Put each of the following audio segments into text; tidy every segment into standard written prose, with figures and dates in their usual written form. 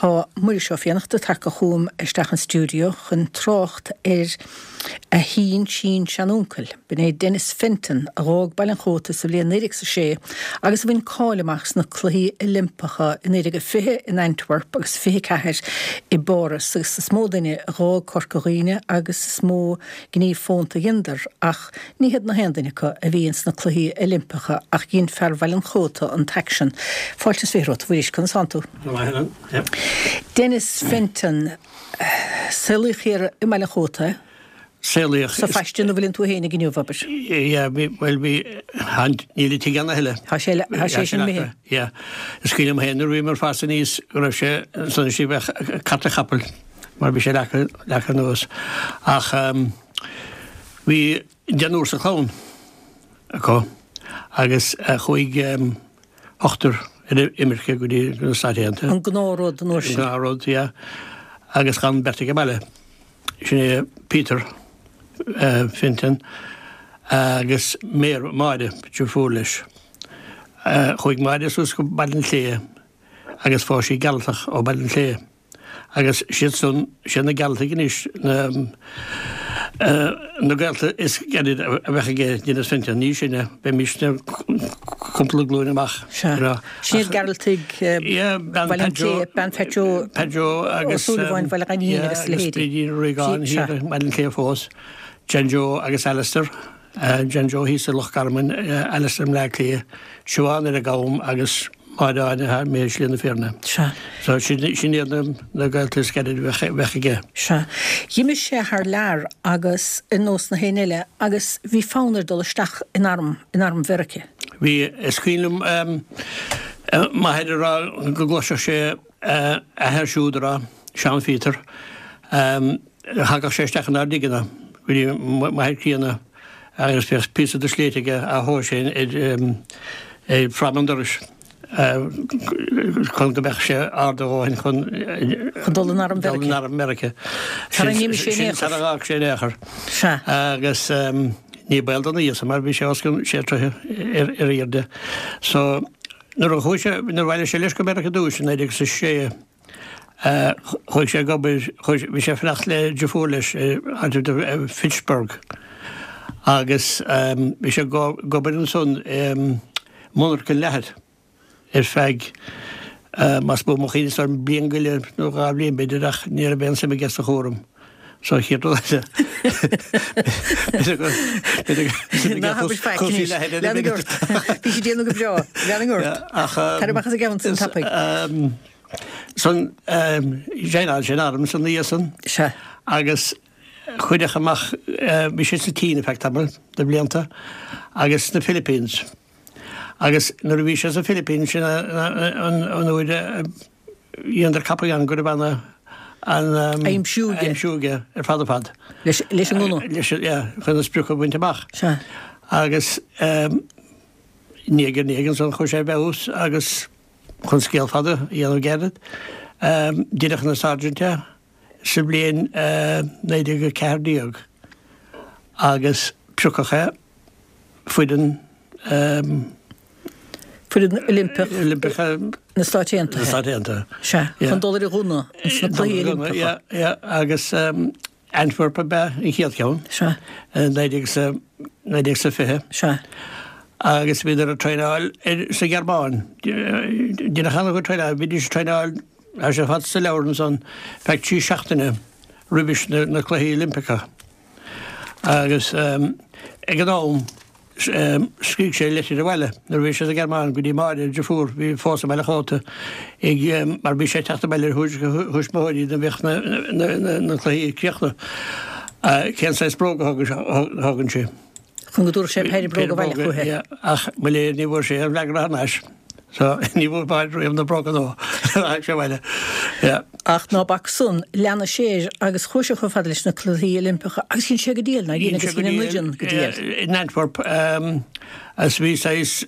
Tá Muiris Ó Fiannachta tagtha chugam isteach an stiúideo chun trácht ar a shín-sín-seanuncail. B'in é Denis Fenton, a dh'fhág Baile an Chóta sa bhliain 1906 agus a bhain cáil amach sna Cluichí Oilimpeacha i 1920 in Antwerp agus 24 i bPáras agus is mó duine a dh'fhág Corca Dhuibhne agus is mó gníomh fónta a dheineadar ach ní hiad na haon duine acu a bhí ins na Cluichí Oilimpeacha ach dhein fear Bhaile an Chóta an t-aicsean. Fáilte is 20 romhat, a Mhuiris, conas tánn tú? Go maith, Helen. Yep. Denis Fenton, saolaíodh thiar i mBaile an Chóta é? Saolaíodh. Sa phaiste ina bhfuileann tú fhéinig inniu, abair. Yeah, bhí, bhuel bhí, níl an tigh ann a thuilleadh. Tá sé, tá sé sin imithe. Yeah. Is cuimhin liom féin nuair a bhíomar ag fás aníos go raibh sé ansan istigh bheadh cárta chapaill mar bhí sé leagtha, leagtha anuas. Ach bhí deichniúr sa chlann acu agus chuaigh ochtar ar imirce go dtí na Stáit Aontaithe. An gnáthrud an uair sin. An gnáthrud, yeah. Agus d'fhan beirt ag an mbaile. Sin é Peter Fenton agus Máire, deirfiúr leis. Chuaigh Máire suas go Baile an tSléibhe agus phós sí Gearaltach ó Bhaile an tSléibhe. Agus siad san, siad na Gearaltaigh anois na na gaolta is gaire a bheadh aige Denis Fenton, ní sinne, bheimisne cúpla glúin amach. Sea. Sin iad Gearaltaigh Bhaile an tSléibhe, bean Phat Joe Pat Joe agus Ó Súilleabháin Bhaile Ghainín agus a leithéidí. Agus Brídín Regan thiar i mBaile an tSléibhe fós, John Joe agus Alistair, John Joe thíos i Loch Garman, Alistair i mBleá Cliath, Siobhán ar an gCam agus Máire Áine thar i Slí na Fírinne. Sea. So sin iad na gaolta is gaire a bheadh aige. Sea. D'imigh sé thar lear agus ar nós na héinne eile agus bhí fonn air dul isteach in arm, in arm Mheirice. Bhí. Is cuimhin liom m'athair ag rá go gcloisfeadh sé a athair siúd ag rá, Seán Phíotair, thagadh sé isteach inár dtigeanna go dtí m'athair críonna agus bheadh píosa de shléit aige á thomhas ar fráma an dorais chun go mbeadh sé ard a dhóthain chun Chun dul in arm Mheirice. Dul in arm Mheirice. Sara n-imigh sé in aon chor. Sara bhfág sé in aon chor. Sea. Agus ní baol don aois mar bhí sé os cionn sé troithe ar airde. So nuair a chuaigh sé, nuair a bhailigh sé leis go Meiriceá ar dtús i 1906, Chuaigh sé ag obair, bhí sé ag fanacht le deirfiúr leis áit i Fitchburg agus bhí sé ag obair ansan i monarcha leathair ar feadh, más buan mo chuimhne, is bliain go leith nó dhá bhliain b'fhéidir ach ní raibh aon suim aige sa chúram. So chéad rud eile. Ná habair faic anois. Lean ort. Bhí sé ag déanamh go breá. Lean ort. Tar amach as an gceann san tapaidh. San joineáil sé an arm san oíche san. Sea. Agus cuireadh amach, bhí sé sa tSín ar feadh tamaill de bhlianta agus sna Philippines. Agus nuair a bhí sé sa Philippines sin an uair a dheineadar ceapadh ann go raibh ana an Aimsiú aige. Aimsiú aige ar fad ar fad. Leis leis an ngunna. Leis yeah, chun an sprioc a bhaint amach. Sea. Agus ndiaidh ar ndiaidh ansan chuaigh sé i bhfeabhas agus Chun scéal fada a dhéanamh gairid, deineadh ina Sergeant é sa bhliain 1914 agus piocadh é foireann Foireann Oilimpeach Oilimpeach na Stáit Aontaithe. Na Stáit Aontaithe. Sea, chun dul ar an ghunna ins na Cluichí Oilimpeacha. Yeah, yeah, agus Antwerp ab ea an chéad cheann. Sea. 1920. Sea. Agus bhíodar ag traenáil sa Ghearmáin. Deineadh an-chuid traenáil. Bhídís ag traenáil, tá sé fad sa leabhar ansan, feadh 3 seachtaine roimhis na Cluichí Oilimpeacha. Agus ag an am, Scrígh sé litir abhaile nuair a bhí sé sa Ghearmáin go dtí Máire, a deirfiúr, a bhí fós i mBaile Chóta, ag, mar bhí sé ag teacht abhaile ar thuairisc a thuismitheoirí nuair a bheadh na cluichí críochnaithe, cén saghas bróga a thógann sé. Chun go dtabharfadh sé péire bróg abhaile chuici. Ach mo léir ní bhfuair sé aon fhreagra thar n-ais. So ní bhfuair Máire riamh na bróga nua tháinig sé abhaile. Yeah. Ach ná bac san, lean sé air agus chuaigh sé chomh fada leis na Cluichí Oilimpeacha agus dhein sé go diail, nár dhein, agus dhein an fhoireann go diail. In Antwerp agus bhí saghas,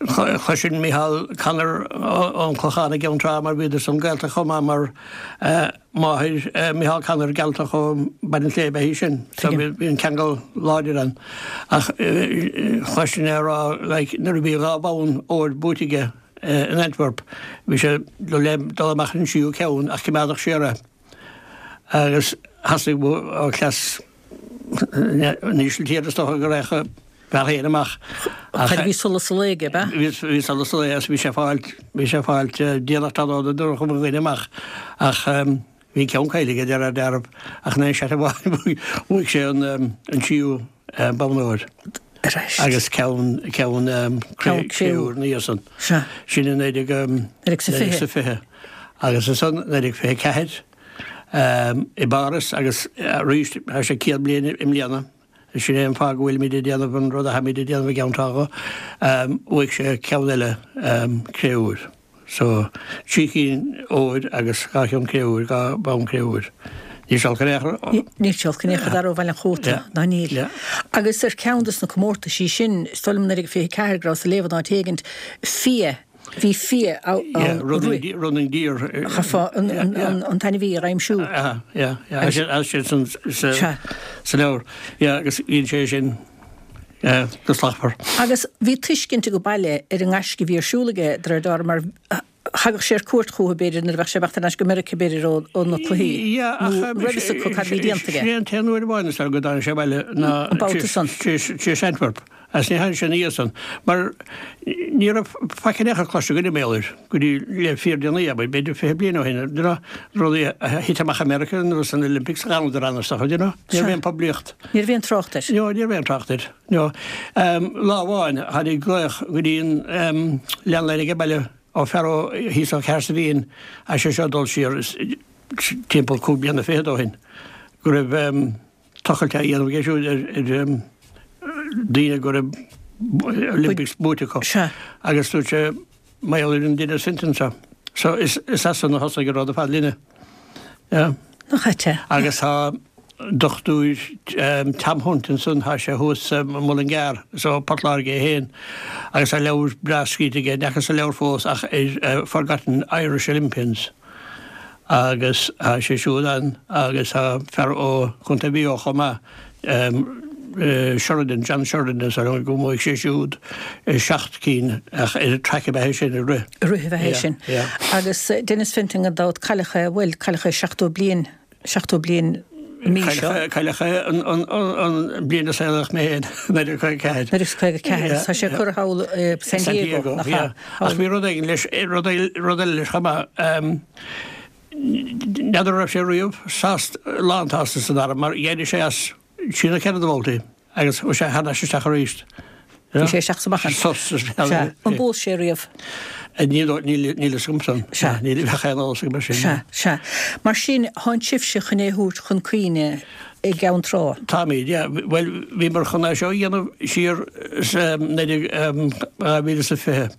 chloisinn Micheál Connor ón Clochán i gCeann Trá mar bhíodar san gaolta chomh maith mar máthair Micheál Connor Gearaltach ó Bhaile an tSléibhe ab ea í sin so bhí an ceangal láidir ann. Ach chloisinn é ag rá like nuair a bhí dhá bhonn óir buaite aige. in Antwerp, bhí sé le dul amach ar an tríú ceann ach coimeádadh siar é agus theastaigh ó chleas na hÍsiltíre is dócha go raghadh a bhfear féin amach. Ach bhí solas an lae aige, ab ea? Bhí solas an lae agus bhí sé ag fáilt, bhí sé ag fáilt déanach tráthnóna nuair a chuaigh mo dhuine amach ach bhí an ceann caillte aige de réir dealraimh ach in aon seat amháin bhuaigh sé an tríú bonn óir agus ceann ceann cré-umha ina dhiaidh san. Sin i 1920 agus ansan 1924 i bPáras agus arís tá sé 100 bliain i mbliana. Sin é an fáth go bhfuilimid ag déanamh an rud atháimid ag déanamh i gCeann Trá. Bhuaigh sé ceann eile cré-úir. So, trí chinn óir agus dhá cheann cré-úir, dhá bhonn cré-úir. Níl sé olc in aon chor. Níl sé olc in aon chor d'fhear ó Bhaile an Chóta, ná níl. Agus ar cheann dos na comórtaisí sin, is dóigh liom 1924 go rabhas ag léamh in áit éigint, fia, bhí fia ann. Yeah, running, running deer. Chaithfeá an t-ainmhí a aimsiú. Yeah, yeah, yeah. Tá sé san sa leabhar. Yeah, agus bhíonn sé sin go slachtmhar. Agus bhí tuiscint ag an baile ar an ngaisce a bhí ar siúl aige, de réir dealraimh, mar thagadh sé ar cuairt chucu, b'fhéidir, nuair a bheadh sé ag imeacht thar n-ais go Meiriceá, b'fhéidir, ó na cluichí. Yeah, ach Nó raibh fhios acu cad a bhí déanta aige. Sin é an t-aon uair amháin is dóigh go dtáinig sé abhaile ná An babhta san. tar éis Antwerp. Agus ní tháinig sé ina dhiaidh san, mar ní raibh faic in aon chor cloiste againn mar gheall air go dtí le fíordhéanaí, abair, b'fhéidir 20 bliain ó shin, you know, rudaí a thit amach i Meiriceá nó san Olympics, d'fhanadar ann is dócha, you know, ní raibh aon poiblíocht. Ní raibh aon trácht air. No, ní raibh aon trácht air, no. Lá amháin, tháinig glaoch go dtí an landline ag an baile ó fear ó thíos ó Chahersiveen, tá sé seo ag dul siar timpeall cúig bliana fichead ó shin, go raibh, tochailt á dhéanamh aige siúd ar daoine go raibh Olympics buaite acu. Agus dúirt sé, mar gheall ar an Denis Fenton seo. So is as san a thosaigh an rud ar fad linne. Yeah. Nach ait é? Agus tá Dochtúir Tom Hunt ansan, tá sé thuas i Mullingar, is ó Port Láirge é féin, agus tá leabhar breá scríte aige, ní fhacas an leabhar fós ach ar Forgotten Irish Olympians. Agus tá sé siúd ann agus tá fear ó Chontae Mhaigh Eo chomh maith, Sheridan, John Sheridan is dóigh liom go mbuaigh sé siúd seacht gcinn ach ar an track ab ea é sin, ag rith. Ag rith ab ea é sin. Agus Denis Fenton gan dabht, cailleadh é, bhuel, cailleadh é 70 bliain 70 bliain an mhí seo. Cailleadh é an bliain a saolaíodh mé féin, 1954. 1954, tá sé curtha thall i San Diego, nach ea? Ach bhí rud éigin leis, rud eile leis chomh maith. N'fheadar an raibh sé riamh sásta, lánsásta san arm mar d'éirigh sé as trí nó ceithre de bhabhtaí. Agus chuaigh sé thar n-ais isteach arís. Bhí sé isteach is amach. Sos. Sea. An bpós sé riamh? Níl, níl, níl fhios agam san. Sea. Níl, bheadh aon eolas agam ar sin. Sea, sea. Mar sin, tánn sibhse chun é a thabhairt chun cuimhne i gCeann Trá. Táimid, yeah. Bhuel, bhíomar chun é seo a dhéanamh siar sa 2020.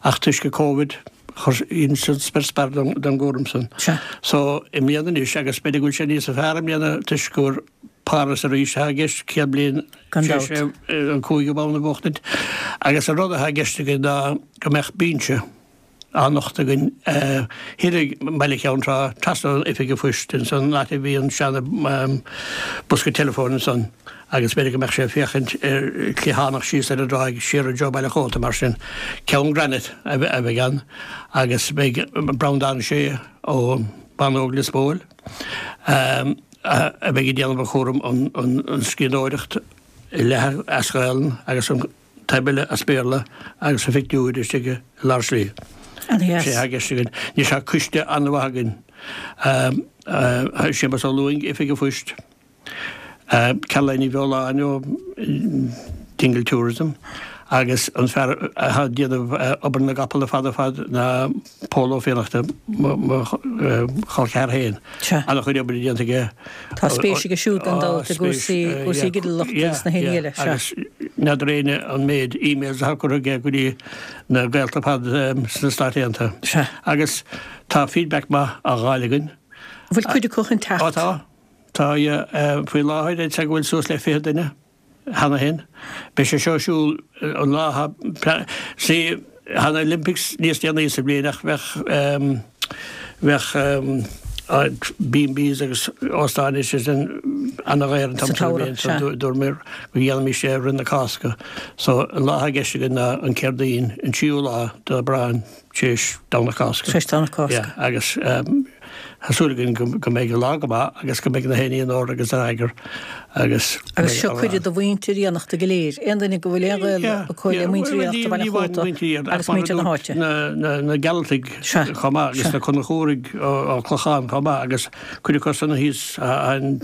Ach toisc an Covid, chuir san spior spear don gcúram san. Sea. So, i mbliana anois, agus b'fhéidir go bhfuil sé níos fearr i mbliana toisc gur Páras arís atá i gceist, 100 bliain Gan tar éis dabht. an cúigiú bonn a bhuachtaint. Agus an rud atá i gceist againn ná go mbeadh binse á nochtadh againn thiar i mBaile Cheann Trá, trasna ón Oifig an Phoist, insan áit a bhí an seana bosca teileafóin ansan agus b'fhéidir go mbeadh sé ag féachaint ar cliathánach síos ar an dtráigh siar i dtreo Baile an Chóta mar sin. Ceann granite a bheidh ann agus beidh Breandán Sé ó Bánóg Lios Póil a bheidh ag déanamh an chúram an scríbhneoireacht leath as Gaelainn agus an taobh eile as Béarla agus a phictiúir istigh i lár slí. An-dheas. Sé atá i gceist againn. Anois tá coiste an-mhaith againn. Séamus Ó Lúing, Oifig an Phoist, Caroline Ní Bheoláin ó Dingle Tourism agus an fear atá ag déanamh obair na gcapall ar fad ar fad ná Pól Ó Fiannachta, mo chol ceathar féin. An-chuid oibre déanta aige. Tá spéis aige siúd gan dabht i gcúrsaí, cúrsaí ginealachta agus na héinne eile. Sea. Agus n'fheadar éinne an méid emails atá curtha aige go dtí na gaolta ar fad sna Stáit Aontaithe. Sea. Agus tá feedback maith á dh'fháil againn. An bhfuil cuid acu chun teacht? Ó tá. Tá, yeah. Faoi láthair, I'd say go bhfuil suas le 20 duine. cheana féin. Beidh sé seo ar siúl an lá atá, see, tá na Olympics níos déanaí sa bhliain ach bheadh, bheadh. B&Bs agus óstáin is sin ana-dhaor an t-am sin den bhliain so dúramar go dhéanfaimis é roimh na Cásca. So an lá atá i gceist againn ná an Céardaoin, an tríú lá d'Aibreán tar éis Domhnach Cásca. Tar éis Domhnach Cásca. Yeah, agus tá súil againn go mbeidh an lá go maith agus go mbeidh na héinní in ord agus in eagar agus. Agus seo cuireadh do mhuintir Fhiannachta go léir, aon duine go bhfuil aon ghaol acu le muintir Fhiannachta Bhaile an Chóta agus muintir na háite. Na Gearaltaigh chomh maith agus na Conchúraigh ó Clochán chomh maith agus cuid acu san thíos an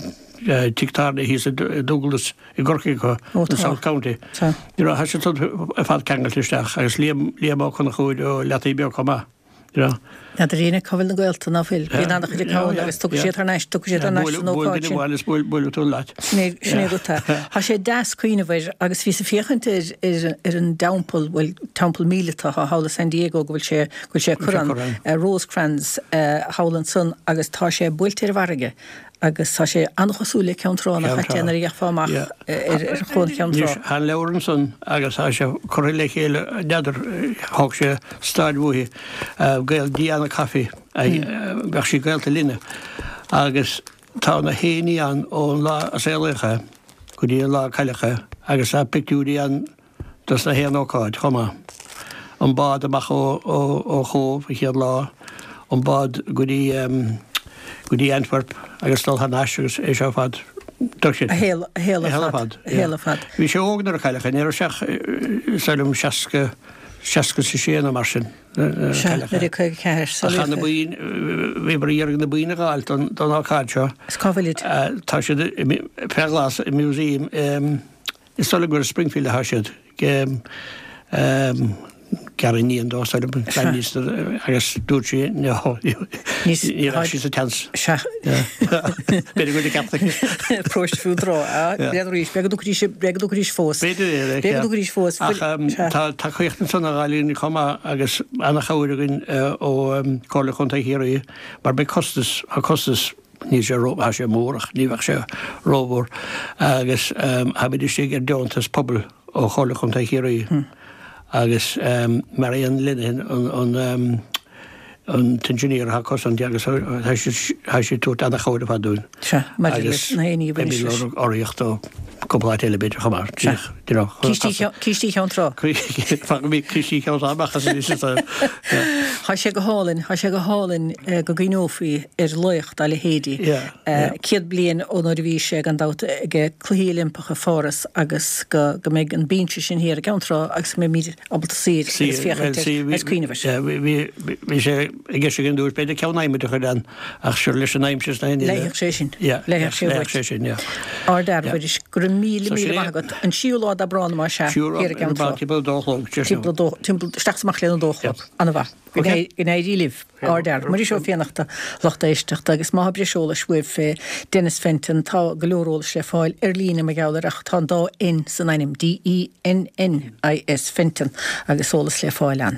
tigh tábhairne thíos i Dúglas i gCorcaigh acu, in South County. You know, tá siad ar fad ceangailte isteach agus Liam Ó Conchúir ó Leataoibh Beag chomh maith. N'fheadar éinne cá bhfuil na gaolta ná fuil. Bíonn an-chuid acu ann agus tiocfaidh siad thar n-ais, tiocfaidh siad thar n-ais san ócáid sin. Buail duine amháin is buailfidh tú leat. Sin é, sin é rud é. Tá sé deas cuimhneamh air agus bhíos ag féachaint ar, ar, ar an dteampall, bhuel, teampall míleata atá thall i San Diego go bhfuil sé, go bhfuil sé ag cur ann, Rosecrans, thall ansan agus tá sé buailte ar an bhfarraige. Agus tá sé an-chosúil le Ceann Trá, nach ait é nuair a fhéachfá amach ar chuan Cheann Trá. Anois, tá an leabhar ansan agus tá sé curtha le chéile, n'fheadar, thóg sé staid uaithi, gaol Diana Coffey, bheadh sí gaolta linne, agus tá na héinní ann ón lá a saolaíodh é go dtí an lá a cailleadh é agus tá pictiúirí ann dos na haon ócáid chomh maith. An bád amach ó Chóbh an chéad lá, an bád go dtí go dtí Antwerp agus dul thar n-ais agus é seo ar fad. A shaol a shaol ar fad. A shaol ar fad. Bhí sé óg nuair a cailleadh é, ní raibh sé ach is dóigh liom 60, 66 nó mar sin nuair a cailleadh é. 1954, Ach tá na boinn, bhíomar ag iarraidh na boinn a dh'fháilt don don ócáid seo. Is cá bhfuilid? Tá siad fé ghlas i museum i Is dóigh liom gur i Springfield atá siad. Gariníon dó, is dóigh liom, agus dúirt sí ní raibh sí sa tseans. Sea. B'fhéidir go bhfuil ceart aici. Próiste fiú tráth, b'fhéidir arís, b'fhéidir go dtiocfaidís, b'fhéidir go dtiocfaidís fós. B'fhéidir é, B'fhéidir go dtiocfaidís fós. Ach tá tacaíocht ansan á fháil againn chomh maith agus ana-chabhair againn ó Chomhairle Chontae Chiarraí mar beidh costas, tá costas, Níl sé ró, tá sé mór ach ní bheadh sé rómhór agus táimid istigh ar deontas pobail ó Chomhairle Chontae Chiarraí agus Marian Lenihan an an t-engineer atá acu san agus tá sí ag tabhairt ana-chabhair ar fad dúinn. Sea, maidir leis na héinní a bhaineas leis. Agus beimid ag lorg urraíocht ó cúpla áit eile b'fhéidir chomh maith. Sea. You know, Cístí Cheann Trá. Fágfaimid Cístí Cheann Trá amach as anois. Tá sé go hálainn, tá sé go hálainn go gcuimhneofaí ar laoch dá leithéidí. 100 bliain ó nuair a bhí sé, gan dabht, ag Cluichí Oilimpeacha Pháras agus go mbeidh an binse sin thiar i gCeann Trá agus go mbeimid ábalta suí air agus féachaint air agus cuimhneamh air. Bhí sé i gceist againn dúirt b'fhéidir ceann adhmaid a chur ann ach sure leis an aimsir is na hinne. Leigfeadh sé sin. Leigfeadh sé uait. sé sin, yeah. Ardfhear, a Mhuiris. Go raibh míle, míle maith agat. An tríú lá d'Aibreán, más ea, thiar i gCeann Trá. Timpeall a dó a chlog. Timpeall, isteach is amach lena dó a chlog. Ana-mhaith. Go n-éirí libh. Ardfhear. Muiris Ó Fiannachta, lucht éisteachta, agus má tá breis eolais uaibh fé Dennis Fenton, tá go leor eolais le fáil ar líne mar gheall air ach tá an dá N san ainm, D-E-N-N-I-S, Fenton, agus eolas le fáil ann.